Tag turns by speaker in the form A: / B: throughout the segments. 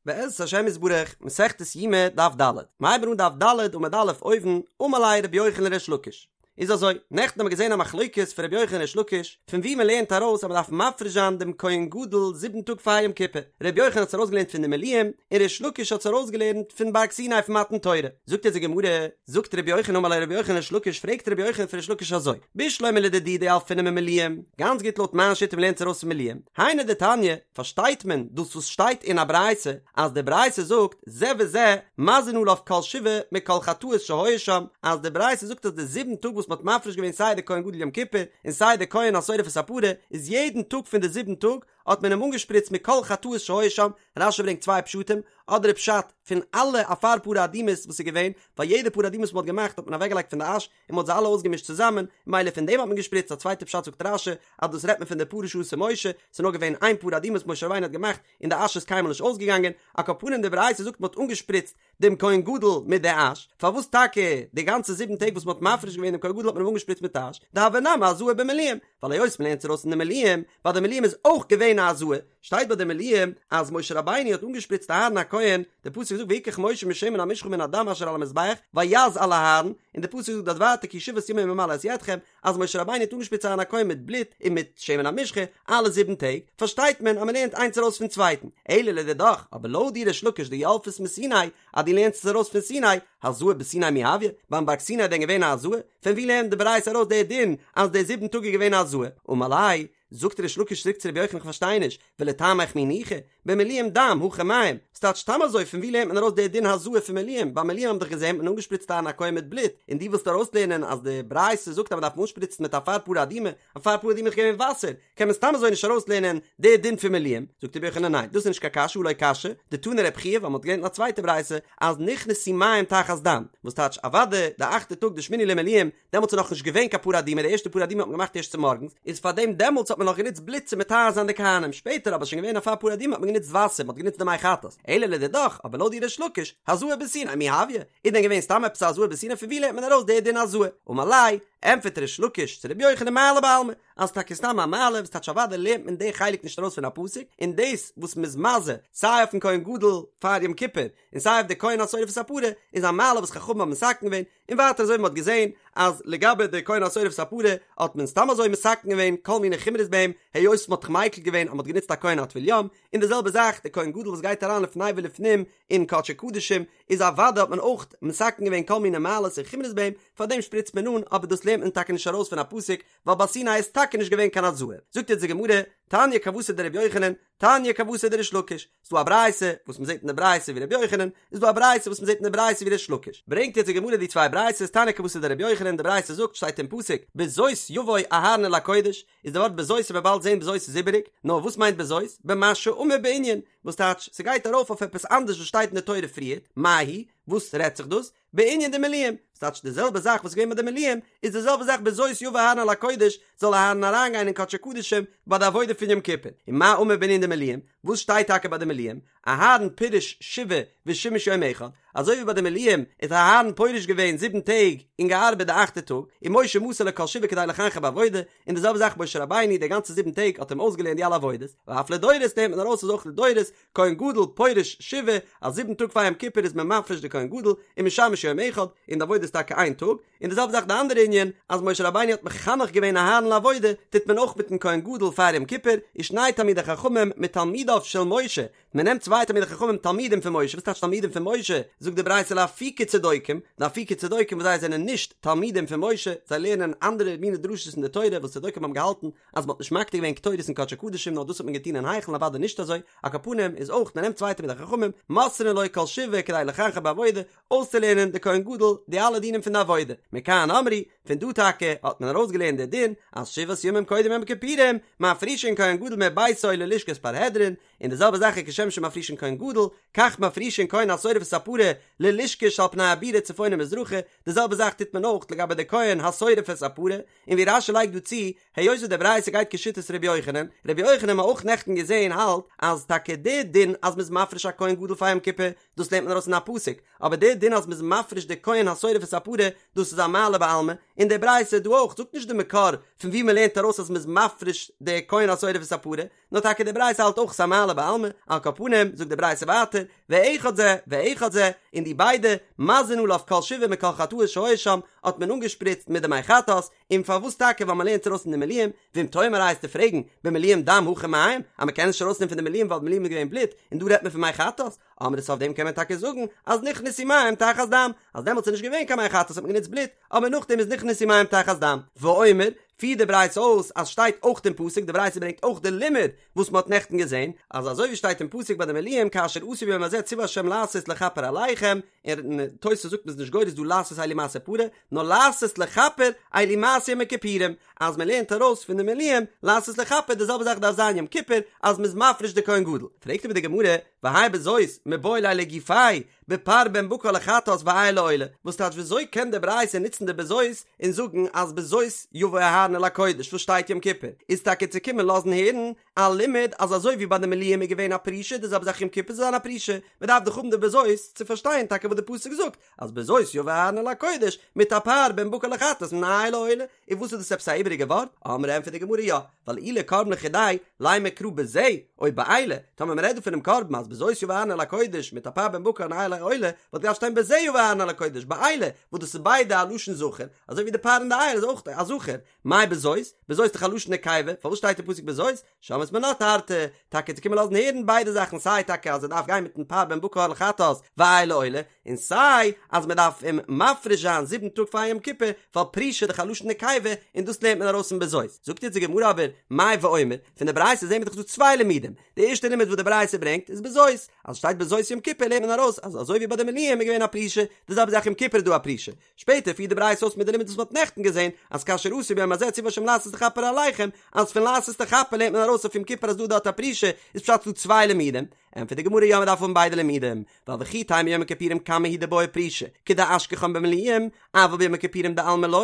A: בעזרת השם יתברך, מסכת יומא דף ד', מ'הייבן אן דף ד' עמוד א' אויבן, אמר ליה רבי יוחנן לריש לקיש. איז אזוי, נעכטן האבן מיר געזען א מחלוקת פון רבי יוחנן און ריש לקיש, פון וואו מ'לערנט ארויס אז מ'דארף מפריש זיין דעם כהן גדול זיבן טאג פאר יום כיפור. רבי יוחנן האט עס ארויסגעלערנט פון די מילואים, און ריש לקיש האט עס ארויסגעלערנט פון בארג סיני פון מתן תורה. זאגט אונז די גמרא, זאגט רבי יוחנן אמר ליה רבי יוחנן לריש לקיש, פרעגט רבי יוחנן פון ריש לקיש אזוי, בשלמא לדידי דילפינן ממילואים, גאנץ גוט לויט מיין שיטה מ'לערנט עס ארויס פון מילואים, היינו דתניא, פארשטייט מען דאס וואס שטייט אין א ברייתא, אז די ברייתא זאגט זה וזה מזין עליו כל שבעה מכל חטאות שהיו שם, אז די ברייתא זאגט אז די זיבן טאג וואס מ'האט מפריש געווען סיי די כהן גדול יום כיפור און סיי די כהן השורף את הפרה, איז יעדן טאג פון די זיבן טאג האט מען אים אנגעשפריצט מכל חטאות שהיו שם, רש"י ברענגט צוויי פשטים, אדער איז פשט פון אלע אפר פרה אדומה'ס וואס איז געווען, ווייל יעדע פרה אדומה וואס מ'האט געמאכט האט מען אוועקגעלייגט פון די אש, און מ'האט זיי אלע אויסגעמישט צוזאמען, ממילא פון דעם האט מען געשפריצט, א צווייטע פשט זאגט רש"י, אז דאס רעדט מען פון די פרה שעשה משה, ס'איז נאר געווען איין פרה אדומה וואס משה רבינו האט געמאכט, און די אש איז קיינמאל נישט אויסגעגאנגען, על כל פנים די ברייתא זאגט מ'האט אנגעשפריצט דעם כהן גדול מיט די אש, פארוואס טאקע די גאנצע זיבן טעג וואס מ'האט מפריש געווען דעם כהן גדול האט מען אים אנגעשפריצט מיט אש, דהוה נמי הזאה במילואים, ווייל היות מ'לערנט עס ארויס אין די מילואים, ווייל די מילואים איז אויך געווען א הזאה, שטייט ביי די מילואים אז משה רבינו האט אנגעשפריצט אהרן הכהן, די פסוק זאגט ויקח משה משמן המשחה ומן הדם אשר על המזבח ויז על אהרן, און די פסוק זאגט דארט ווייטער כי שבעת ימים ימלא את ידכם, אז משה רבינו האט אנגעשפריצט אהרן הכהן מיט בלוט און מיט שמן המשחה אלע זיבן טעג, פארשטייט מען אז מען לערנט איינס ארויס פון צווייטן, אלא לדידך, אבער לויט דיר ריש לקיש דילפת מסיני, אז דו לערנסט עס ארויס פון סיני, הזאה בסיני מי הויא, ביים בארג סיני איז דען געווען א הזאה? פון ווי לערנט די ברייתא ארויס די דין אז די זיבן טאג איז געווען א הזאה? אמר ליה, זאגט ריש לקיש צוריק צו רבי יוחנן איך פארשטיי נישט, ולטעמיך מי ניחא, במילואים דם, הכא מים, ס'טייטש סתם אזוי פון ווי לערנט מען ארויס די דין הזאה פון מילואים, ביי מילואים האבן דאך געזען האט מען אנגעשפריצט אהרן הכהן מיט בלוט, און דו ווילסט ארויסלערנען אז די ברייתא זאגט אז מ'דארף אנשפריצן מיט אפר פרה אדומה, אפר פרה אדומה איז געווען וואסער, קען מען סתם אזוי נישט ארויסלערנען די דין פון מילואים, זאגט רבי יוחנן ניין, דאס איז נישט קיין קשיא הא לא קשיא, דתני רבי חייא ווייל מ'האט געלערנט אין א צווייטע ברייתא אז נכנסו מים תחת דם, וואס טייטש אוודאי די אכטע טאג די שמיני למילואים דעמאלטס איז נאכנישט געווען קיין פרה אדומה, די ערשטע פרה אדומה האט מען געמאכט ערשט צומארגנס, איז פארדעם דעמאלטס האט מען נאך גענוצט בלוט צו מטהר זיין די כהנים, שפעטער אבער איז שוין געווען אפר פרה אדומה האט מען גענוצט וואסער, מען האט גענוצט די מי חטאת, אלא לדידך, אבער לויט דיר ריש לקיש, הזאה בסיני מי הויא, איז דען געווען סתם עפעס א הזאה בסיני פון ווי לערנט מען ארויס די דין הזאה? אמר ליה, ענטפערט ריש לקיש צו רבי יוחנן מעלה בעלמא, אז טאקע סתם א מעלה, וואס טייטש אוודאי לערנט מען די חלק נישט ארויס פון א פסוק, און דאס וואס מ'איז מזה סיי אויפן כהן גדול פאר יום כיפור, און סיי אויף די כהן השורף את הפרה, איז א מעלה וואס חכמים האבן מתקן געווען, און ווייטער אזוי ווי מ'האט געזען אז לגבי די כהן השורף את הפרה האט מען סתם אזוי מתקן געווען כל מיני חומרות ביי אים היות מ'האט זיך מיקל געווען אז מ'האט גענוצט א כהן א טבול יום, און די זעלבע זאך די כהן גדול וואס גייט אריין לפני ולפנים אין קדשי קדשים איז אוודאי האט מען אויך מתקן געווען כל מיני מעלות און חומרות ביי אים, פארדעם שפריצט מען אן, אבער דאס לערנט מען טאקע נישט ארויס פון א פסוק ווייל ביי סיני איז טאקע נישט געווען קיין הזאה. זאגט יעצט די גמרא, תניא כוותיה דרבי יוחנן, תניא כוותיה דריש לקיש, ס'דא א ברייתא וואס מ'זעט אין די ברייתא ווי רבי יוחנן, איז דא א ברייתא וואס מ'זעט אין די ברייתא ווי ריש לקיש. ברענגט יעצט די גמרא די צוויי ברייתות, תניא כוותיה דרבי יוחנן, די ברייתא זאגט, שטייט אין פסוק, בזאת יבוא אהרן אל הקודש, איז די ווארט בזאת וועט מען באלד זען בזאת איז איבעריג, נאר וואס מיינט בזאת? במה שאמור בענין, וואס טייטש, ס'גייט ארויף אויף עפעס אנדערש וואס שטייט אין די תורה פריערט, מאי היא, וואס רעדט זיך דאס? בענין דמילואים, ס'טייטש די זעלבע זאך וואס איז געווען ביי די מילואים, איז די זעלבע זאך בזאת יבא אהרן אל הקודש, זאל אהרן אריינגיין אין קדשי קדשים ביי די עבודה פון יום כיפור. ומה אמור בענין דמילואים, וואס שטייט טאקע ביי די מילואים? אהרן פירש שבעה ושימש יום אחד, אזוי ווי ביי די מילואים איז אהרן פורש געווען זיבן טעג און געארבעט די אכטע טאג, ומשה מסר לו כל שבעה כדי לחנכו בעבודה, און די זעלבע זאך משה רבינו די גאנצע זיבן טעג האט אים אויסגעלערנט די אלע עבודות, ואף לדורות נעמט מען ארויס אז אויך לדורות, כהן גדול פורש שבעה, אז זיבן טאג פאר יום כיפור איז מען מפריש די כהן גדול, ומשמש יום אחד, און די עבודה איז טאקע איין טאג, און די זעלבע זאך די אנדערע ענין, אז משה רבינו האט מחנך געווען אהרן לעבודה, טוט מען אויך מיטן כהן גדול פאר יום כיפור, ושני תלמידי חכמים מתלמידיו של משה, מען נעמט צוויי תלמידי חכמים תלמידים פון משה, וואס טייטש תלמידים פון משה? זאגט די ברייתא לאפוקי צדוקים, לאפוקי צדוקים וואס זיי זענען נישט תלמידים פון משה, זיי לערנען אנדערע מיני דרשות אין די תורה וואס צדוקים האבן געהאלטן אז מען האט נישט מקטיר געווען קטורת אין קדשי קדשים נאר דאס האט מען געטון אין היכל אוודאי נישט אזוי, על כל פנים איז אויך מען נעמט צוויי תלמידי חכמים, מוסרין לו כל שבעה כדי לחנכו בעבודה, אויסצולערנען די כהן גדול די אלע דינים פון די עבודה, מכאן אמרו, פון דא טאקע האט מען ארויסגעלערנט די דין אז שבעת ימים קודם יום הכיפורים מפרישין כהן גדול מביתו ללשכת פרהדרין, און די זעלבע זאך איז כשם שמפרישין כהן גדול, כך מפרישין כהן השורף את הפרה ללשכה שעל פני הבירה צפונה ומזרחה, די זעלבע זאך טוט מען אויך לגבי די כהן השורף את הפרה, און ווי רש"י לייגט דא צו, היות וואס די ברייתא גייט כשיטת ר' יוחנן, ר' יוחנן האבן מיר אויך נעכטן געזען האלט אז טאקע די דין אז מ'איז מפריש א כהן גדול פאר יום כיפור, דאס לערנט מען ארויס אין א פסוק, אבער די דין אז מ'איז מפריש די כהן השורף את הפרה, דאס איז א מעלה בעלמא, און די ברייתא דא אויך זאגט נישט די מקור פון וואו מ'לערנט ארויס אז מ'איז מפריש די כהן השורף את הפרה, נאר טאקע די ברייתא האלט אויך ס'איז א מעלה. מתגלה בעלמא, על כל פנים, זאגט די ברייתא ווייטער, ואחד זה ואחד זה, און די ביידע, מזין עליו כל שבעה מכל חטאות שהיו שם, האט מען אנגעשפריצט מיט די מי חטאת, און פארוואס טאקע ווייל מען לערנט ארויס פון די מילואים, ואם תאמר וועסטו פרעגן, במילואים דם הכא מים, אז מען קען נישט ארויסנעמען פון די מילואים ווייל די מילואים איז געווען בלוט, און דא רעדט מען פון מי חטאת, אמרת אויף דעם קען מען טאקע זאגן אז נכנסו מים תחת דם, אז דעמאלטס איז נישט געווען קיין מי חטאת האט מען גענוצט בלוט, אבער נאכדעם איז נכנסו מים תחת דם. ואומר, פירט די ברייתא אויס אז שטייט אויך אין פסוק, די ברייתא ברענגט אויך די לימוד וואס מען האט נעכטן געזען, אז אזוי ווי שטייט אין פסוק ביי די מילואים כאשר עשו ביום הזה ציוה ה' לעשות לכפר עליכם, און תוס' זאגט מ'איז נישט גורס דא לעשות אלו מעשה פרה, נאר לעשות לכפר אלו מעשה יום הכיפורים, אז מען לערנט ארויס פון די מילואים לעשות לכפר די זעלבע זאך דארף זיין יום כיפור אז מ'איז מפריש די כהן גדול, פרעגט אבער די גמרא, והאי בזאת מיבעי ליה לגופיה בפר בן בקר לחטאת ואיל לעולה, וואס טייטש וויאזוי קען די ברייתא נוצן די בזאת און זאגן אז בזאת יבוא אהרן אל הקודש וואס שטייט יום כיפור איז טאקע צו קומען לאזן הערן א לימוד אז אזוי ווי ביי די מילואים איז געווען א פרישה די זעלבע זאך יום כיפור זאל זיין א פרישה, מען דארף דאך האבן די בזאת צו פארשטיין טאקע וואס די פסוק זאגט אז בזאת יבוא אהרן אל הקודש מיט א פר בן בקר לחטאת און איל לעולה, און וואס איז דאס עפעס א איבעריגע ווארט? אמרי ענטפערט די גמרא יא, ווייל אי לקרבן לחודיה, לימא קרא בזה, או באלה, טאמער מען רעדט דא פונעם קרבן אז בזאת יבוא אהרן אל הקודש מיט א פר בן בקר און איל לעולה, וואלט געדארפט שטיין בזה יבוא אהרן אל הקודש, באלה, וואס דאס איז ביידע א לשון זכר, אזוי ווי די פר און די איל איז אויך א זכר, מאי בזאת? בזאת איז דאך א לשון נקבה, פארוואס שטייט אין פסוק בזאת? שמעת מינה תרתי, טאקע צו קומען לאזן הערן ביידע זאכן סיי טאקע אז ער דארף גיין מיטן פר בן בקר לחטאת ואיל לעולה, און סיי אז מען דארף אים מפריש זיין זיבן טאג פאר יום כיפור, ווייל פרישה איז דאך א לשון נקבה און דאס לערנט מען ארויס פון בזאת. זאגט יעצט די גמרא אבער, מאי ואומר, פון די ברייתא זעהן מיר דאך דא צוויי לימודים, די ערשטע לימוד וואס די ברייתא ברענגט איז בזאת, אז שטייט בזאת יום כיפור לערנט מען ארויס אז אזוי ווי ביי די מילואים איז געווען א פרישה, די זעלבע זאך יום כיפור איז דא א פרישה, שפעטער פירט די ברייתא אויס מיט די לימוד וואס מ'האט נעכטן געזען, אז כאשר עשו ביום הזה ציוה השם לעשות לכפר עליכם, אז פון לעשות לכפר לערנט מען ארויס אויף יום כיפור אז דא דארט א פרישה, איז פשט ס'דא צוויי לימודים? ענטפערט די גמרא יא מ'דארף האבן ביידע לימודים, ווייל וכי תימא יום הכיפורים קמא הוא דבעי פרישה, כדאשכחן במילואים, אבל ביום הכיפורים דעלמא לא,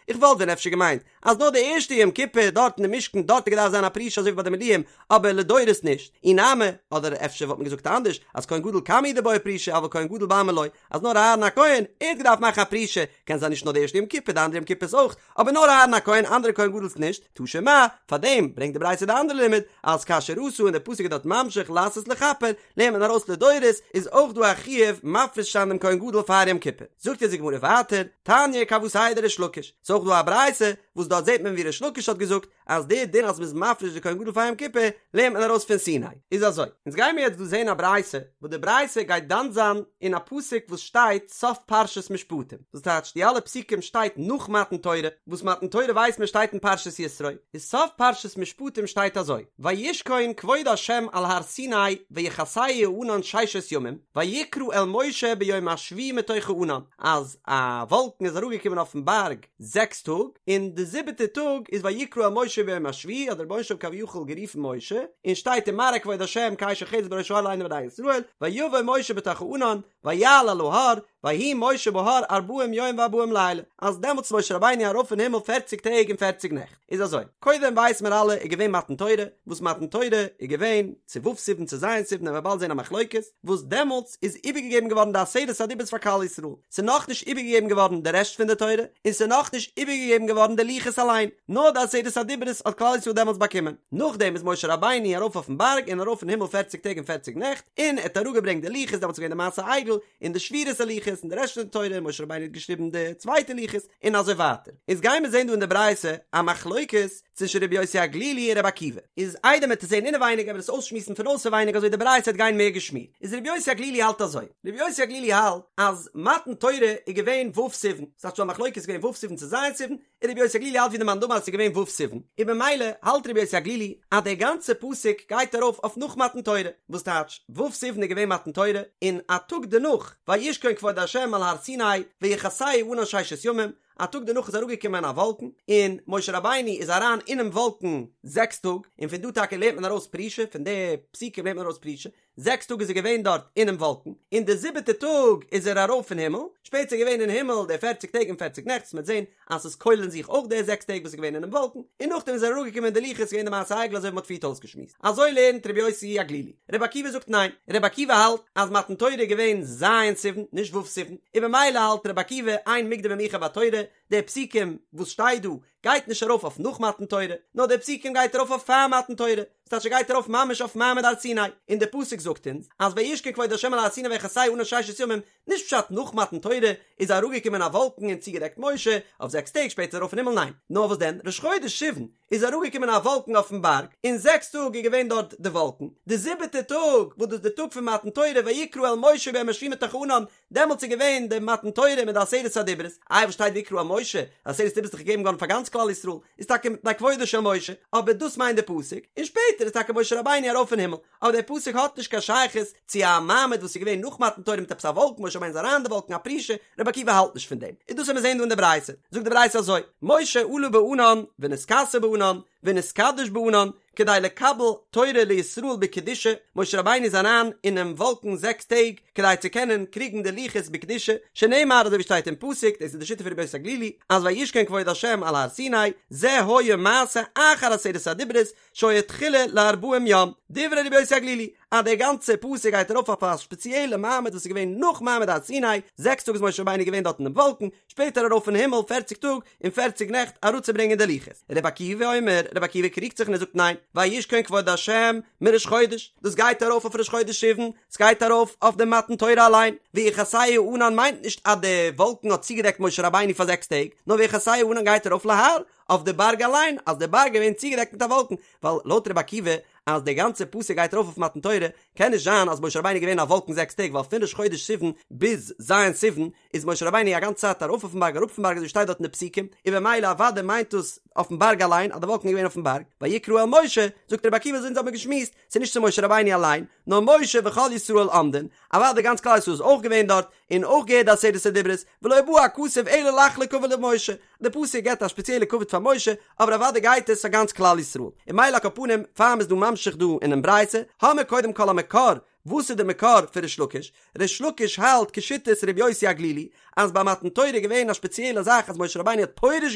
A: איך וואלט ווען אפשר געמיינט אז נאר די ערשטע יום כיפור דארט אין די משכן דארט האט געדארפט זיין א פרישה אזוי ווי ביי די מילואים, אבער לדורות נישט, אי נמי, אדער אפשר וואלט מען געזאגט אנדערש, אז כהן גדול קמא הוא דבעי פרישה אבל כהן גדול בעלמא לא, אז נאר אהרן הכהן, ער האט געדארפט מאכן א פרישה, קען זיין נישט נאר די ערשטע יום כיפור די אנדערע יום כיפור'ס אויך, אבער נאר אהרן הכהן אנדערע כהן גדול'ס נישט, תא שמע, פארדעם ברענגט די ברייתא די אנדערע לימוד, אז כאשר עשו און די פסוק איז דארט ממשיך לעשות לכפר, לערנט מען ארויס לדורות, איז אויך דא א חיוב מפריש זיין דעם כהן גדול פאר יום כיפור. זאגט אונז די גמרא ווייטער, תניא כוותיה דריש לקיש, ס'איז אויך דא א ברייתא וואס דארט זעט מען ווי ריש לקיש האט געזאגט אז די דין אז מ'איז מפריש די כהן גדול פאר יום כיפור לערנט מען ארויס פון סיני. איז אזוי, אונז גיימיר יעצט דא זען א ברייתא, וואס די ברייתא גייט דן זיין אין א פסוק וואס שטייט סוף פרשת משפטים, דאס טייטש די אלע פסוקים שטייט נאך מתן תורה, וואס מתן תורה ווייסט מען שטייט אין פרשת יתרו, איז סוף פרשת משפטים שטייט אזוי, וישכון כבוד ה' על הר סיני ויכסהו הענן ששת ימים, ויקרא אל משה ביום השביעי מתוך הענן, אז א וואלקן איז אראפגעקומען אויפן בארג זעקס טאג, און די זיבעטע טאג איז ויקרא אל משה ביום השביעי האט דער רבונו של עולם כביכול גערופן משה, און שטייט ומראה כבוד ה' כאש אוכלת בראש ההר לעיני בני ישראל, ויבא משה בתוך הענן, ויעל אל ההר, ויהי משה בהר ארבעים יום וארבעים לילה, אז דעמאלטס איז משה רבינו ארויף אין הימל פערציג טעג און פערציג נעכט. איז אזוי, קודם ווייסן מיר אלע איז געווען מתן תורה, וואס מתן תורה איז געווען צו ו' סיוון צו ז' סיוון וועלן מיר באלד זען א מחלוקת, וואס דעמאלטס איז איבערגעגעבן געווארן די עשרת הדיברות פאר כלל ישראל, ס'איז נאכנישט איבערגעגעבן געווארן די רעשט פון די תורה, און ס'איז נאכנישט איבערגעגעבן געווארן די לוחות אליין, נאר די עשרת הדיברות האט כלל ישראל דעמאלטס באקומען. נאכדעם איז משה רבינו ארויף אויפן בארג און ארויף אין הימל פערציג טעג און פערציג נעכט, און ער האט אראפגעברענגט די לוחות, דעמאלטס איז געווען די מעשה עגל, און די שבירת הלוחות, און די רעשט פון די תורה, און משה רבינו האט געשריבן די צווייטע לוחות, און אזוי ווייטער. איז גייען מיר זען דא אין די ברייתא א מחלוקת צווישן רבי יוסי הגלילי און רבי עקיבא. איז איידער מ'עט עס זען אינעווייניג וועלן מיר עס אויסשמועסן פון אויסערווייניג אזוי די ברייתא וועט גיין מער געשמירט. איז רבי יוסי הגלילי האלט אזוי. רבי יוסי הגלילי האלט אז מתן תורה איז געווען ו' סיוון. ס'הייסט שוין א מחלוקת איז געווען ו' סיוון צו ז' סיוון, און רבי יוסי הגלילי האלט ווי די מאן דאמר אז ס'איז געווען ו' סיוון. און במילא האלט רבי יוסי הגלילי אז דער גאנצער פסוק גייט ארויף אויף נאך מתן תורה. וואס טייטש ו' סיוון איז געווען מתן תורה, און א טאג דערנאך וישכון כבוד ה' על הר סיני ויכסהו הענן ששת ימים, א טאג דערנאך איז אראפגעקומען א וואלקן, און משה רבינו איז אריין אינעם וואלקן זעקס טאג, און פון דא טאקע לערנט מען ארויס פרישה, פון די פסוקים לערנט מען ארויס פרישה, זעקס טאג איז ער געווען דארט אינעם וואלקן, און די זיבעטע טאג איז ער ארויף אין הימל, שפעטער איז געווען אין הימל די פערציג טעג און פערציג נעכט, וואס מ'וועט זען אז ס'איז כולל אין זיך אויך די זעקס טעג וואס איז געווען אינעם וואלקן, און נאכדעם איז ער אראפגעקומען די לוחות, איז געווען די מעשה העגל אזוי ווי מ'האט פריערט אויסגעשמועסט. אזוי לערנט רבי יוסי הגלילי. רבי עקיבא זאגט ניין, רבי עקיבא האלט אז מתן תורה איז געווען ז' סיוון, נישט ו' סיוון, און במילא האלט רבי עקיבא אין מוקדם ומאוחר בתורה, די פסוקים וואס שטייט דא. גייט נישט ארויף אויף נאך מתן תורה, נאר די פסוקים גייט ארויף אויף פאר מתן תורה, ס'טייטש ס'גייט ארויף ממש אויף מעמד הר סיני, און די פסוק זאגט אונז אז וישכון כבוד ה' על הר סיני ויכסהו הענן ששת ימים, נישט פשט נאך מתן תורה איז אראפגעקומען א וואלקן און צוגעדעקט משה אויף זעקס טעג שפעטער ארויף אין הימל ניין, נאר וואס דען ראש חודש סיוון איז אראפגעקומען א וואלקן אויפן בארג און זעקס טאג איז געווען דארט די וואלקן, די זיבעטע טאג וואס דאס איז די טאג פון מתן תורה ויקרא אל משה ביום היושבים בתוך הענן דעמאלטס איז געווען די מתן תורה מיט די עשרת הדיברות, איי וואס שטייט ויקרא אל משה, עשרת הדיברות איז דאך געגעבן געווארן פאר גאנץ כלל ישראל, איז טאקע מפני כבודו של משה, אבער דאס מיינט די פסוק, און שפעטער איז טאקע משה רבינו ארויף אין הימל, אבער דער פסוק האט נישט קיין שייכות צו א מעמד וואס איז געווען נאך מתן תורה מיט עפעס א וואלקן, משה רבינו איז אריין אין די וואלקן א פרישה, רבי עקיבא האלט נישט פון דעם, און דאס וועט מען זען דא אין די ברייתא, זאגט די ברייתא אזוי, משה עלה בענן ונתכסה בענן ונתקדש בענן, כדי לקבל תורה לישראל בקדושה, משה רבינו איז אריין אינעם וואלקן זעקס טעג כדי צו קענען קריגן די לוחות בקדושה, שנאמר אזוי ווי שטייט אין פסוק, דאס איז די שיטה פון רבי יוסי הגלילי, אז וישכון כבוד השם על הר סיני, זה היה מעשה אחר עשרת הדיברות, שהיה תחילה לארבעים יום, דברי רבי יוסי הגלילי, אז דער גאנצער פסוק גייט ארויף אויף א ספעציעלע מעמד וואס איז געווען נאך מעמד הר סיני, זעקס טאג איז משה רבינו געווען דארט אינעם וואלקן, שפעטער ארויף אין הימל פערציג טאג און פערציג נעכט אראפצוברענגען די לוחות. רבי עקיבא אומר, רבי עקיבא קריגט זיך און ער זאגט ניין, וישכון כבוד השם מראש חודש, דאס גייט ארויף אויף ראש חודש סיוון, ס'גייט ארויף אויף די מתן תורה אליין, ויכסהו הענן מיינט נישט אז די וואלקן האט צוגעדעקט משה רבינו פאר זעקס טעג, נאר ויכסהו הענן גייט ארויף להר, אויף די בארג אליין, אז די בארג איז געווען צוגעדעקט מיט א וואלקן, ווייל לויט רבי עקיבא אז די גאנצע פסוק גייט ארויף אויף מתן תורה, קען נישט זיין אז משה רבינו איז געווען אין א וואלקן זעקס טעג, ווייל פון ראש חודש סיוון ביז ז' סיוון איז משה רבינו א גאנצע צייט ארויף אויפן בארג אראפ פון בארג אזוי שטייט דארט אין די פסוקים, און במילא אוודאי מיינט דאס אויפן בארג אליין אז די וואלקן איז געווען אויפן בארג, ויקרא אל משה, זאגט רבי עקיבא אזוי אונז האבן געשמועסט, ס'איז נישט צו משה רבינו אליין, נאר משה וכל ישראל עומדין, אוודאי גאנץ כלל ישראל איז אויך געווען דארט, און אויך געהערט די עשרת הדיברות, ולא בא הכתוב אלא לחלוק כבוד למשה, די פסוק געבט א שפעציעלע כבוד פאר משה, אבער אוודאי גייט עס פאר גאנץ כלל ישראל. און ממילא על כל פנים, פאר מ'איז דא ממשיך דא אינעם ברייתא, האמיר קודם כל א מקור, וואס איז די מקור פון ריש לקיש? ריש לקיש האלט כשיטת ר' יוסי הגלילי, אז ביי מתן תורה איז געווען א שפעציעלע זאך אז משה רבינו האט פורש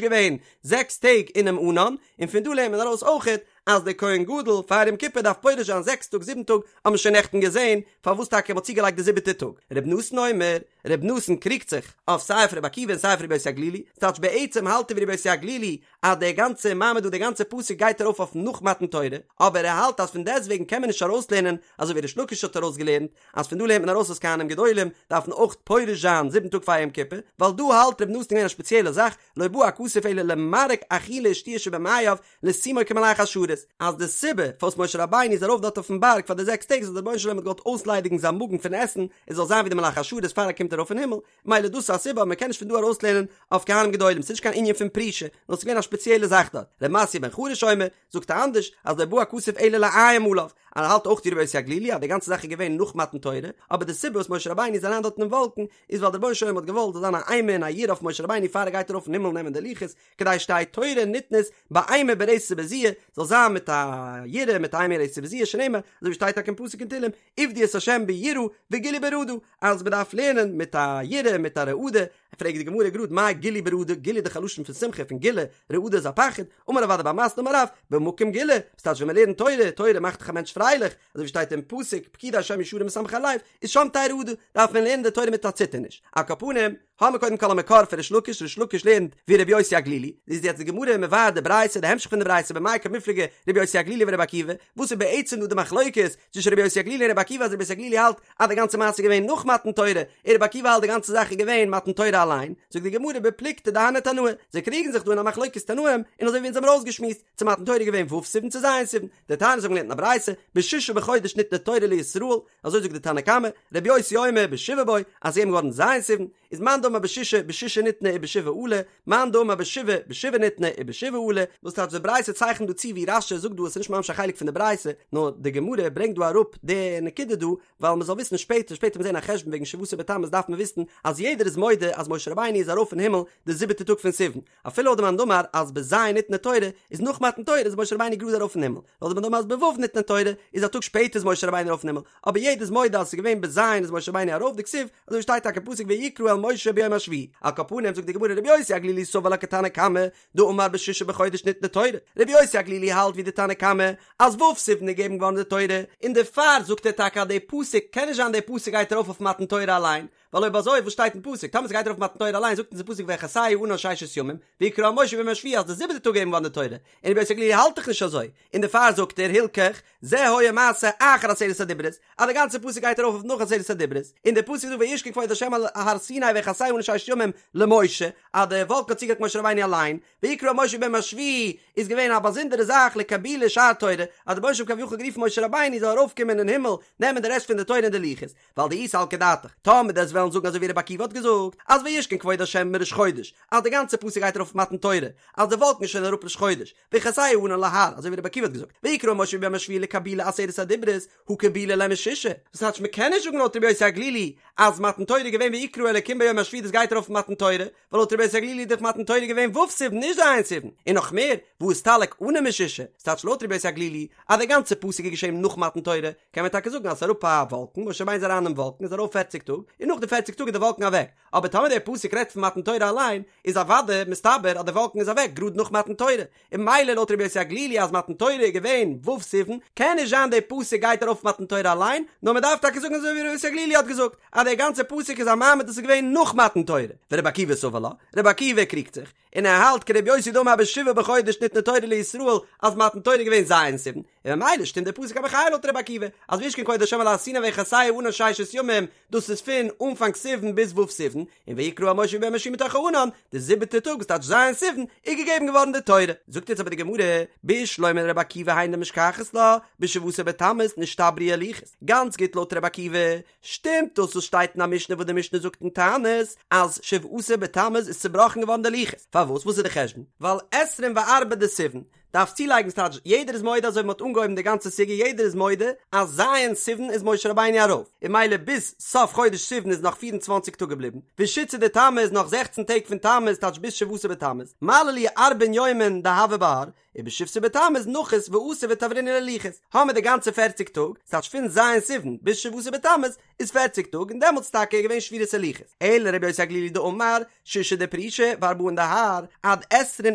A: געווען זעקס טעג אינעם ענן, און פון דא לערנט מען ארויס אויכעט אז דער כהן גדול פאר יום כיפור דארף פורש זיין זעקס טאג זיבן טאג, האט מען שוין נעכטן געזען פארוואס טאקע מ'האט צוגעלייגט די זיבעטע טאג. ר' נתן אומר, ר' נתן קריגט זיך אויף סיי אויף ר' עקיבא און סיי אויף ר' יוסי הגלילי, ס'טייטש בעצם האלט ער ווי ר' יוסי הגלילי אז דער גאנצער מעמד דא דער גאנצער פסוק גייט ארויף אויף נאך מתן תורה, אבער ער האלט אז פון דעסטוועגן קען מען נישט ארויסלערנען אזוי ווי ריש לקיש האט ארויסגעלערנט אז פון דא לערנט מען ארויס אז כהנים גדולים דארפן אויך פורש זיין זיבן טאג פאר יום כיפור, ווייל דא האלט ר' נתן געווען א שפעציעלע זאך, לא בא הכתוב אלא למרק אכילה ושתיה שבמעיו לשימו כמלאכי השרת, אז די סיבה פארוואס משה רבינו איז ארויף דארט אויפן בארג פאר די זעקס טעג איז אז דער רבונו של עולם האט געוואלט אויסליידיגן זיין מאגן פון עסן עס זאל זיין ווי די מלאכי השרת פאר ער קומט ארויף אין הימל, מילא דאס איז א סיבה אבער מען קען נישט פון דא ארויסלערנען אויף כהנים גדולים, ס'איז נישט קיין ענין פון פרישה, נאר ס'איז געווען א שפעציעלע זאך דארט. ר' מתיא בן חרש אומר, זאגט ער אנדערש, אז לא בא הכתוב אלא לאיים עליו, אז ער האלט אויך ווי רבי יוסי הגלילי אז די גאנצע זאך איז געווען נאך מתן תורה, אבער די סיבה וואס משה רבינו איז אריין דארט אינעם וואלקן איז ווייל דער רבונו של עולם האט געוואלט זאל זיין א אימה און א יראה אויף משה רבינו פאר ער גייט ארויף אין הימל נעמען די לוחות, כדי שתהא תורה ניתנת באימה ברתת ובזיעה, זאל זיין מיט א יראה מיט אימה רתת ובזיעה שנאמר, אזוי ווי שטייט טאקע אין פסוק אין תהלים, עבדו את ה' ביראה וגילו ברעדה, אז מען דארף לערנען מיט א יראה מיט א רעדה, פרעגט די גמרא גראד מאי גילו ברעדה, גילו איז דאך א לשון פון שמחה פון גילה, רעדה איז א פחד, אמר רב אדא בר מתנה אמר רב, במקום גילה, וואס טייטש ווען מען לערנט תורה, תורה מאכט דאך א מענטש פרייליך, אזוי ווי שטייט אין פסוק, פקודי השם ישרים משמחי לב, איז שם תהא רעדה, דארף מען לערנען די תורה מיט א ציטערניש. על כל פנים, האמיר קודם כל א מקור פון ריש לקיש, ריש לקיש לערנט ווי רבי יוסי הגלילי, איז יעצט די גמרא מבאר די ברייתא, די המשך פון די ברייתא במאי קמיפלגי רבי יוסי הגלילי ורבי עקיבא, וואס איז בעצם דא די מחלוקת צווישן רבי יוסי הגלילי און רבי עקיבא אז רבי יוסי הגלילי האלט אז די גאנצע מעשה איז געווען נאך מתן תורה, און רבי עקיבא האלט די גאנצע זאך איז געווען מתן תורה אליין, זאגט די גמרא בפלוגתא דהני תנאי, זיי קריגן זיך דא אין א מחלוקת תנאים, און אזוי ווי אונז האבן ארויסגעשמועסט, צו מתן תורה איז געווען ו' סיוון צו ז' סיוון, דתניא אונז האבן געלערנט אין א ברייתא, בשישה בחודש ניתנה תורה לישראל, אזוי זאגט די תנא קמא, רבי יוסי אומר בשבעה בו, אז ס'איז געגעבן געווארן ז' סיוון, איז מאן דאמר בשישה בשישה ניתנה ובשבעה עלה, מאן דאמר בשבעה בשבעה ניתנה ובשבעה עלה, וואס טייטש די ברייתא צייכנט דא צו ווי רש"י זאגט דא עס איז נישט ממש א חלק פון די ברייתא, נאר די גמרא ברענגט דא אראפ די נקודה דא, ווייל מען זאל וויסן שפעטער, שפעטער וועט מען זען א חשבון וועגן שבעה עשר בתמוז דארף מען וויסן אז יעדער איז מודה אז משה רבינו איז ארויף אין הימל די זיבעטע טאג פון סיוון, אפילו לויט די מאן דאמר אז בז' ניתנה תורה איז נאך מתן תורה איז משה רבינו גראד ארויף אין הימל, לויט די מאן דאמר אז בו' ניתנה תורה איז א טאג שפעטער איז משה רבינו ארויף אין הימל, אבער יעדער איז מודה אז עס איז געווען בז' איז משה רבינו ארויף דכתיב, אזוי ווי שטייט טאקע אין פסוק ויקרא אל משה ביום. ביום השביעי. על כל פנים זאגט די גמרא רבי יוסי הגלילי סבר לה כתנא קמא דאמר בשישה בחודש ניתנה תורה, רבי יוסי הגלילי האלט ווי די תנא קמא אז ו' סיוון איז געגעבן געווארן די תורה, און דערפאר זאגט ער טאקע אז די פסוק קען נישט זיין די פסוק גייט ארויף אויף מתן תורה אליין, ווייל אויב אזוי וואס שטייט אין פסוק? טאמער ס'גייט ארויף מתן תורה אליין זאגט אונז די פסוק ויכסהו הענן ששת ימים, ויקרא אל משה ביום השביעי אז די זיבעטע טאג געגעבן געווארן די תורה, און רבי יוסי הגלילי האלט דאך נישט אזוי, און דערפאר זאגט ער הלכך זה היה מעשה אחר עשרת הדיברות, אז די גאנצע פסוק גייט ארויף אויף נאך עשרת הדיברות, און די פסוק זאגט וישכון כבוד ה' על הר סיני ויכסהו הענן ששת ימים למשה, אז די וואלקן האט צוגעדעקט משה רבינו אליין, ויקרא אל משה ביום השביעי איז געווען א באזונדערע זאך לקבולי שאר תורה, אז דער רבונו של עולם כביכול גערופן משה רבינו זאל ארויפקומען אין הימל נעמען די רעשט פון די תורה און די לוחות, ווייל דאי סלקא דעתך, טאמער דו וועסט וועלן זאגן אזוי ווי רבי עקיבא האט געזאגט, אז וישכון כבוד השם מראש חודש, אז די גאנצע פסוק גייט ארויף אויף מתן תורה, אז די וואלקן איז שוין אראפ ראש חודש, ויכסהו הענן להר, אזוי ווי רבי עקיבא האט געזאגט, ויקרא אל משה ביום השביעי לקבולי עשרת הדיברות, הא קבילו ליה משישה, דאס טייטש מען קען נישט זאגן לויט רבי יוסי הגלילי אז מתן תורה איז געווען ויקרא אלקים ביום השביעי דאס גייט ארויף אויף מתן תורה, ווייל לויט רבי יוסי הגלילי איז דאך מתן תורה געווען ו' סיוון נישט ז' סיוון, און נאך מער, והא אסתלק ענן משישה, ס'טייטש לויט רבי יוסי הגלילי אז די גאנצע פסוק איז געשען נאך מתן תורה, קען מען טאקע זאגן אז ס'איז אראפ א וואלקן, משה רבינו איז אריין אינעם וואלקן איז ארויף פערציג טאג, און נאך די פערציג טאג איז די וואלקן אוועק, אבער טאמער דער פסוק רעדט פון מתן תורה אליין, איז אוודאי מסתבר אז די וואלקן איז אוועק גראד נאך מתן תורה, און ממילא לויט רבי יוסי הגלילי אז מתן תורה איז געווען ו' סיוון, קען נישט זיין דער פסוק גייט ארויף מתן תורה אליין, נאר מען דארף טאקע זאגן אזוי ווי רבי יוסי הגלילי האט געזאגט, אז דער גאנצער פסוק איז א מעמד וואס איז געווען נאך מתן תורה, ורבי עקיבא סבר לה, רבי עקיבא קריגט זיך, און ער האלט כרבי יוסי דאמר בשבעה בחודש ניתנה תורה לישראל אז מתן תורה איז געווען ז' סיוון, און ממילא שטימט דער פסוק א מחיה לויט רבי עקיבא, אז וישכון כבוד השם על הר סיני ויכסהו הענן ששת ימים, דאס איז פון אנפאנג סיוון ביז ו' סיוון, און ויקרא אל משה ביום השביעי מתוך הענן, די זיבעטע טאג וואס טייטש ז' סיוון, איז געגעבן געווארן די תורה. זאגט יעצט אבער די גמרא, בשלמא לרבי עקיבא היינו דמשכחת לה, בשבעה עשר בתמוז נשתברו הלוחות, גאנץ גוט לויט רבי עקיבא, שטימט דאס וואס שטייט אין א משנה וואס די משנה זאגט אין תענית אז שבעה עשר בתמוז איז צובראכן געווארן די לוחות, פארוואס וואס איז די חשבון? ווייל עשרים וארבעה דסיוון דארף צולייגן ס'טייטש יעדער איז מודה אזוי ווי מ'האט אנגעהויבן די גאנצע סוגיא יעדער איז מודה אז ז' סיוון איז משה רבינו ארויף און ממילא ביז סוף חודש סיוון איז נאך 24 טאג געבליבן ושיתסר דתמוז נאך 16 טעג פון תמוז טייטש ביז שבעה עשר בתמוז מלי להו ארבעין יומין דהוו בהר ובשבסר בתמוז נחית ואתא ותברינהו ללוחות, האמער די גאנצע פערציג טאג, ס'טייטש פון ז' סיוון ביז שבעה עשר בתמוז איז פערציג טאג און דעמאלטס טאקע איז געווען שבירת הלוחות, אלא רבי יוסי הגלילי דאמר שישה דפרישה וארבעין דהר עד עשרין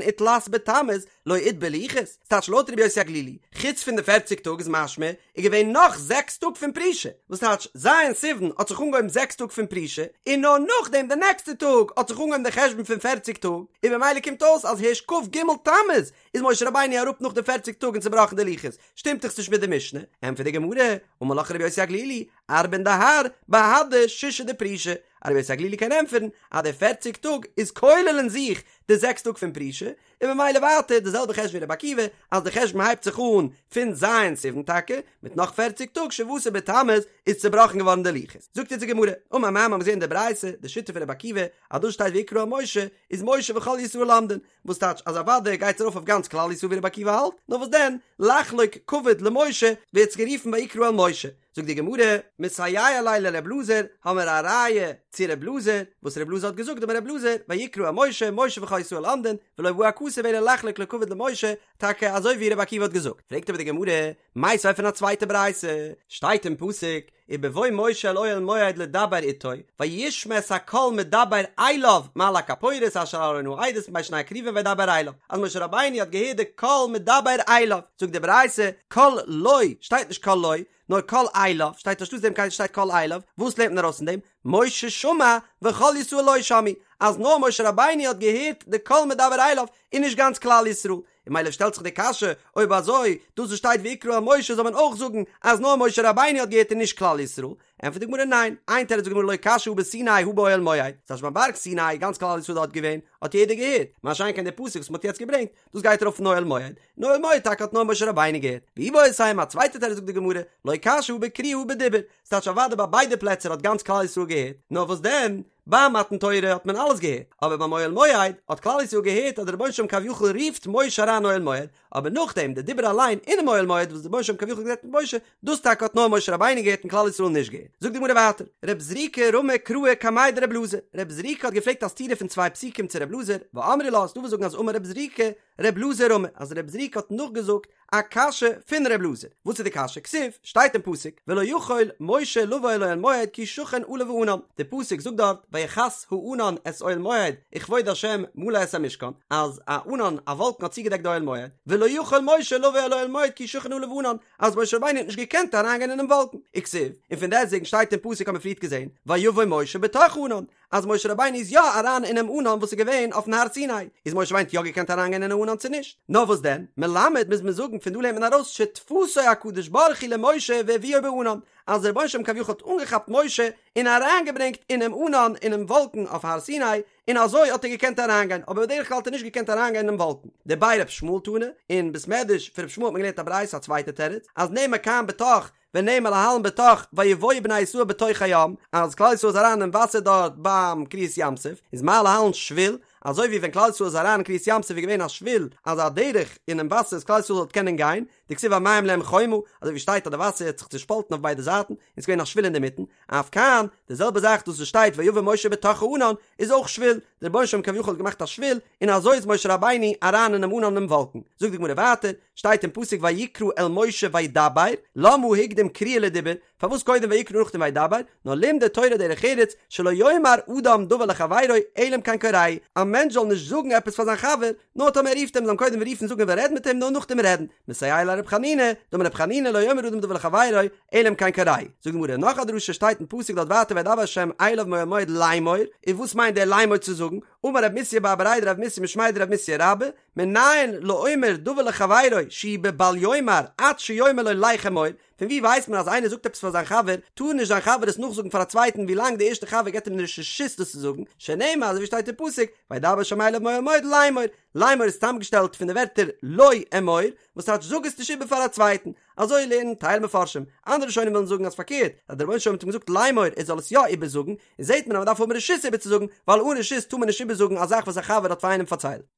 A: ותלת בתמוז לא איתבר לוחות, ס'טייטש לויט רבי יוסי הגלילי, חוץ פון די פערציג טאג איז משמע איז געווען נאך זעקס טאג פון פרישה, וואס טייטש ז' סיוון האט זיך אנגעהויבן זעקס טאג פון פרישה, און נאר נאכדעם די נעקסטע טאג האט זיך אנגעהויבן די חשבון פון פערציג טאג, און במילא קומט אויס אז הערשט כ"ג תמוז איז משה רבינו אראפ נאך די פערציג טאג און צובראכן די לוחות, שטימט דאך נישט מיט די משנה, ענטפערט די גמרא, אמר לך רבי יוסי הגלילי, ארבעין דהר, בהדי שישה דפרישה, אז רבי יוסי הגלילי קען ענטפערן אז די פערציג טאג איז כולל אין זיך די זעקס טאג פון פרישה, און ממילא ווייטער די זעלבע חשבון ווי רבי עקיבא, אז די חשבון הייבט זיך אן פון ז' סיוון טאקע, מיט נאך פערציג טאג שבעה עשר בתמוז איז צובראכן געווארן די לוחות. זאגט אונז די גמרא, אמר מר מ'האט געזען אין די ברייתא די שיטה פון רבי עקיבא, אז דאס שטייט ויקרא אל משה, איז משה וכל ישראל עומדין, וואס טייטש אז אוודאי גייט עס ארויף אויף גאנץ כלל ישראל ווי רבי עקיבא האלט, נאר וואס דען, לחלוק כבוד למשה, ווערט עס גערופן ויקרא אל משה. זאגט די גמרא, מסייע ליה לר' אלעזר, האמער א ראיה צו ר' אלעזר, וואס ר' אלעזר האט געזאגט דאמר ר' אלעזר, ויקרא אל משה, משה וכל ישראל עומדין, ולא בא הכתוב אלא לחלוק לו כבוד למשה, טאקע אזוי ווי ר' עקיבא האט געזאגט. פרעגט אבער די גמרא, מיתיבי פון א צווייטע ברייתא, שטייט אין פסוק, ובבוא משה אל אוהל מועד לדבר אתו, וישמע את הקול מדבר אליו מעל הכפורת אשר על ארון העדות מבין שני הכרובים וידבר אליו, אז משה רבינו האט געהערט די קול מדבר אליו, זאגט די ברייתא, קול לו, שטייט נישט קול לו, נאר קול אליו, שטייט אנשטאטס דעם קול שטייט קול אליו, וואס לערנט מען ארויס פון דעם? משה שמע וכל ישראל לא שמעו, אז נאר משה רבינו האט געהערט די קול מדבר אליו, און נישט גאנץ כלל ישראל, און ממילא שטעלט זיך די קשיא, אויב אזוי, דאס וואס שטייט ויקרא אל משה זאל מען אויך זאגן אז נאר משה רבינו האט געהערט און נישט כלל ישראל? ענטפערט די גמרא ניין, איין תירוץ זאגט די גמרא לא קשיא הא בסיני הא באוהל מועד, ס'טייטש ביים בארג סיני, גאנץ כלל ישראל דארט געווען, האט יעדער געהערט, מה שאין כן די פסוק וואס מ'האט יעצט געברענגט, דאס גייט ארויף אין אוהל מועד, אין אוהל מועד טאקע האט נאר משה רבינו געהערט, ואיבעית אימא, א צווייטע תירוץ זאגט די גמרא, לא קשיא הא בקריאה הא בדיבור, ס'טייטש אוודאי ביי ביידע פלעצער האט גאנץ כלל ישראל געהערט, נאר וואס דען, ביי מתן תורה האט מען אלעס געהערט, אבער ביים אוהל מועד האט כלל ישראל געהערט אז דער רבונו של עולם כביכול רופט משה אריין אוהל מועד, אבער נאכדעם די דיבור אליין אינעם אוהל מועד וואס דער רבונו של עולם כביכול גערעדט מיט משה, דאס טאקע האט נאר משה רבינו געהערט און כלל ישראל נישט געהערט. זאגט די גמרא ווייטער, רב זריקא רמי קראי קמיה דרב אלעזר, רב זריקא האט געפרעגט א סתירה פון צוויי פסוקים צו רב אלעזר, ואמרי לה, ס'דא וואס זאגן אז אמר רב זריקא, ר' אלעזר רמי, אז ר' זריקא האט נאכגעזאגט א קשיא פון ר' אלעזר, וואס איז די קשיא? כתיב, שטייט אין פסוק, ולא יכול משה לבוא אל אוהל מועד כי שכן עליו הענן, די פסוק זאגט דארט ויכס הענן את אוהל מועד וכבוד השם מלא את המשכן, אז א ענן, א וואלקן האט צוגעדעקט די אוהל מועד, ולא יכול משה לבוא אל אוהל מועד כי שכן עליו הענן, אז משה רבינו האט נישט געקענט אריינגיין אינעם וואלקן, וכתיב, און פון דעסטוועגן שטייט אין פסוק האט מען פריערט געזען, ויבא משה בתוך הענן, אז משה רבינו איז יא אריין אינעם ענן וואס איז געווען אויפן הר סיני, איז משה רבינו האט יא געקענט אריינגיין אינעם ענן צו נישט? נאר וואס דען, מלמד מוז מען זאגן פון דא לערנט מען ארויס שתפסו הקדוש ברוך הוא למשה והביאו בענן, אז דער רבונו של עולם כביכול האט אנגעכאפט משה און אריינגעברענגט אינעם ענן אינעם וואלקן אויף הר סיני, און אזוי האט ער געקענט אריינגיין, אבער בדרך כלל האט ער נישט געקענט אריינגיין אינעם וואלקן. דבי ר' ישמעאל תנא, אין בית מדרש פון ר' ישמעאל האט מען געלערנט א ברייתא א צווייטע תירוץ, אז נאמר כאן בתוך ונאמר להלן בתוך ויבואו בני ישראל בתוך הים, אז כלל ישראל איז אריין אין וואסער דארט ביים קריעת ים סוף, איז מה להלן שביל, אזוי ווי ווען כלל ישראל איז אריין אין קריעת ים סוף איז געווען א שביל, אזא דרך אינעם וואסער אז כלל ישראל זאל קענען גיין, דכתיב והמים להם חומה, אזוי ווי שטייט אז די וואסער האט זיך צושפאלטן אויף ביידע זייטן, און ס'איז געווען א שביל אינדערמיטן, אף כאן, די זעלבע זאך דאס וואס שטייט ויבא משה בתוך הענן, איז אויך שביל, דער רבונו של עולם כביכול האט געמאכט א שביל, און אזוי איז משה רבינו אריין אינעם ענן אינעם וואלקן. זאגט די גמרא ווייטער, שטייט אין פסוק ויקרא אל משה וידבר, למה הקדים קריאה לדיבור, פארוואס קודם ויקרא נאכדעם וידבר, נאר לימדה תורה דרך ארץ, שלא יאמר אדם דבר לחבירו אלא אם כן קוראהו, א מענטש זאל נישט זאגן עפעס פאר זיין חבר, נאר טאמער ער רופט אים זאל אים קודם רופן זאגן ער וויל רעדן מיט אים נאר נאכדעם רעדן, מסייע ליה לרב חנינא, דאמר רב חנינא לא יאמר אדם דבר לחבירו אלא אם כן קוראהו. זאגט די גמרא נאך א דרשה שטייט אין פסוק דארט ווייטער וידבר ה' אליו מאוהל מועד לאמור, און וואס מיינט דער לאמור צו זאגן, אמר רב מסיא בר בריה דרב מסיא משמיה דרב מסיא רבה, מנין לאומר דבר לחבירו שהוא בבל יאמר עד שיאמר לו לך אמור, פון ווי ווייסט מען אז איינער זאגט עפעס פאר זיין חבר, טאר נישט זיין חבר עס נאכזאגן פאר א צווייטן ווי לאנג די ערשטע חבר געבט אים נישט רשות דאס צו זאגן, שנאמר אזוי ווי שטייט אין פסוק, וידבר ה' אליו מאוהל מועד לאמור, לאמור איז צוזאמגעשטעלט פון די ווערטער לא אמור, וואס טייטש זאג עס נישט איבער פאר א צווייטן, אזוי לערנען טייל מפרשים, אנדערע ראשונים ווילן זאגן אז פארקערט, אז דער רבונו של עולם האט אים געזאגט לאמור ער זאל עס יא איבערזאגן, און זעט מען אז מען דארף האבן רשות איבערצוזאגן, ווייל אן רשות טאר מען נישט איבערזאגן א זאך וואס א חבר האט פאר איינעם פארציילט.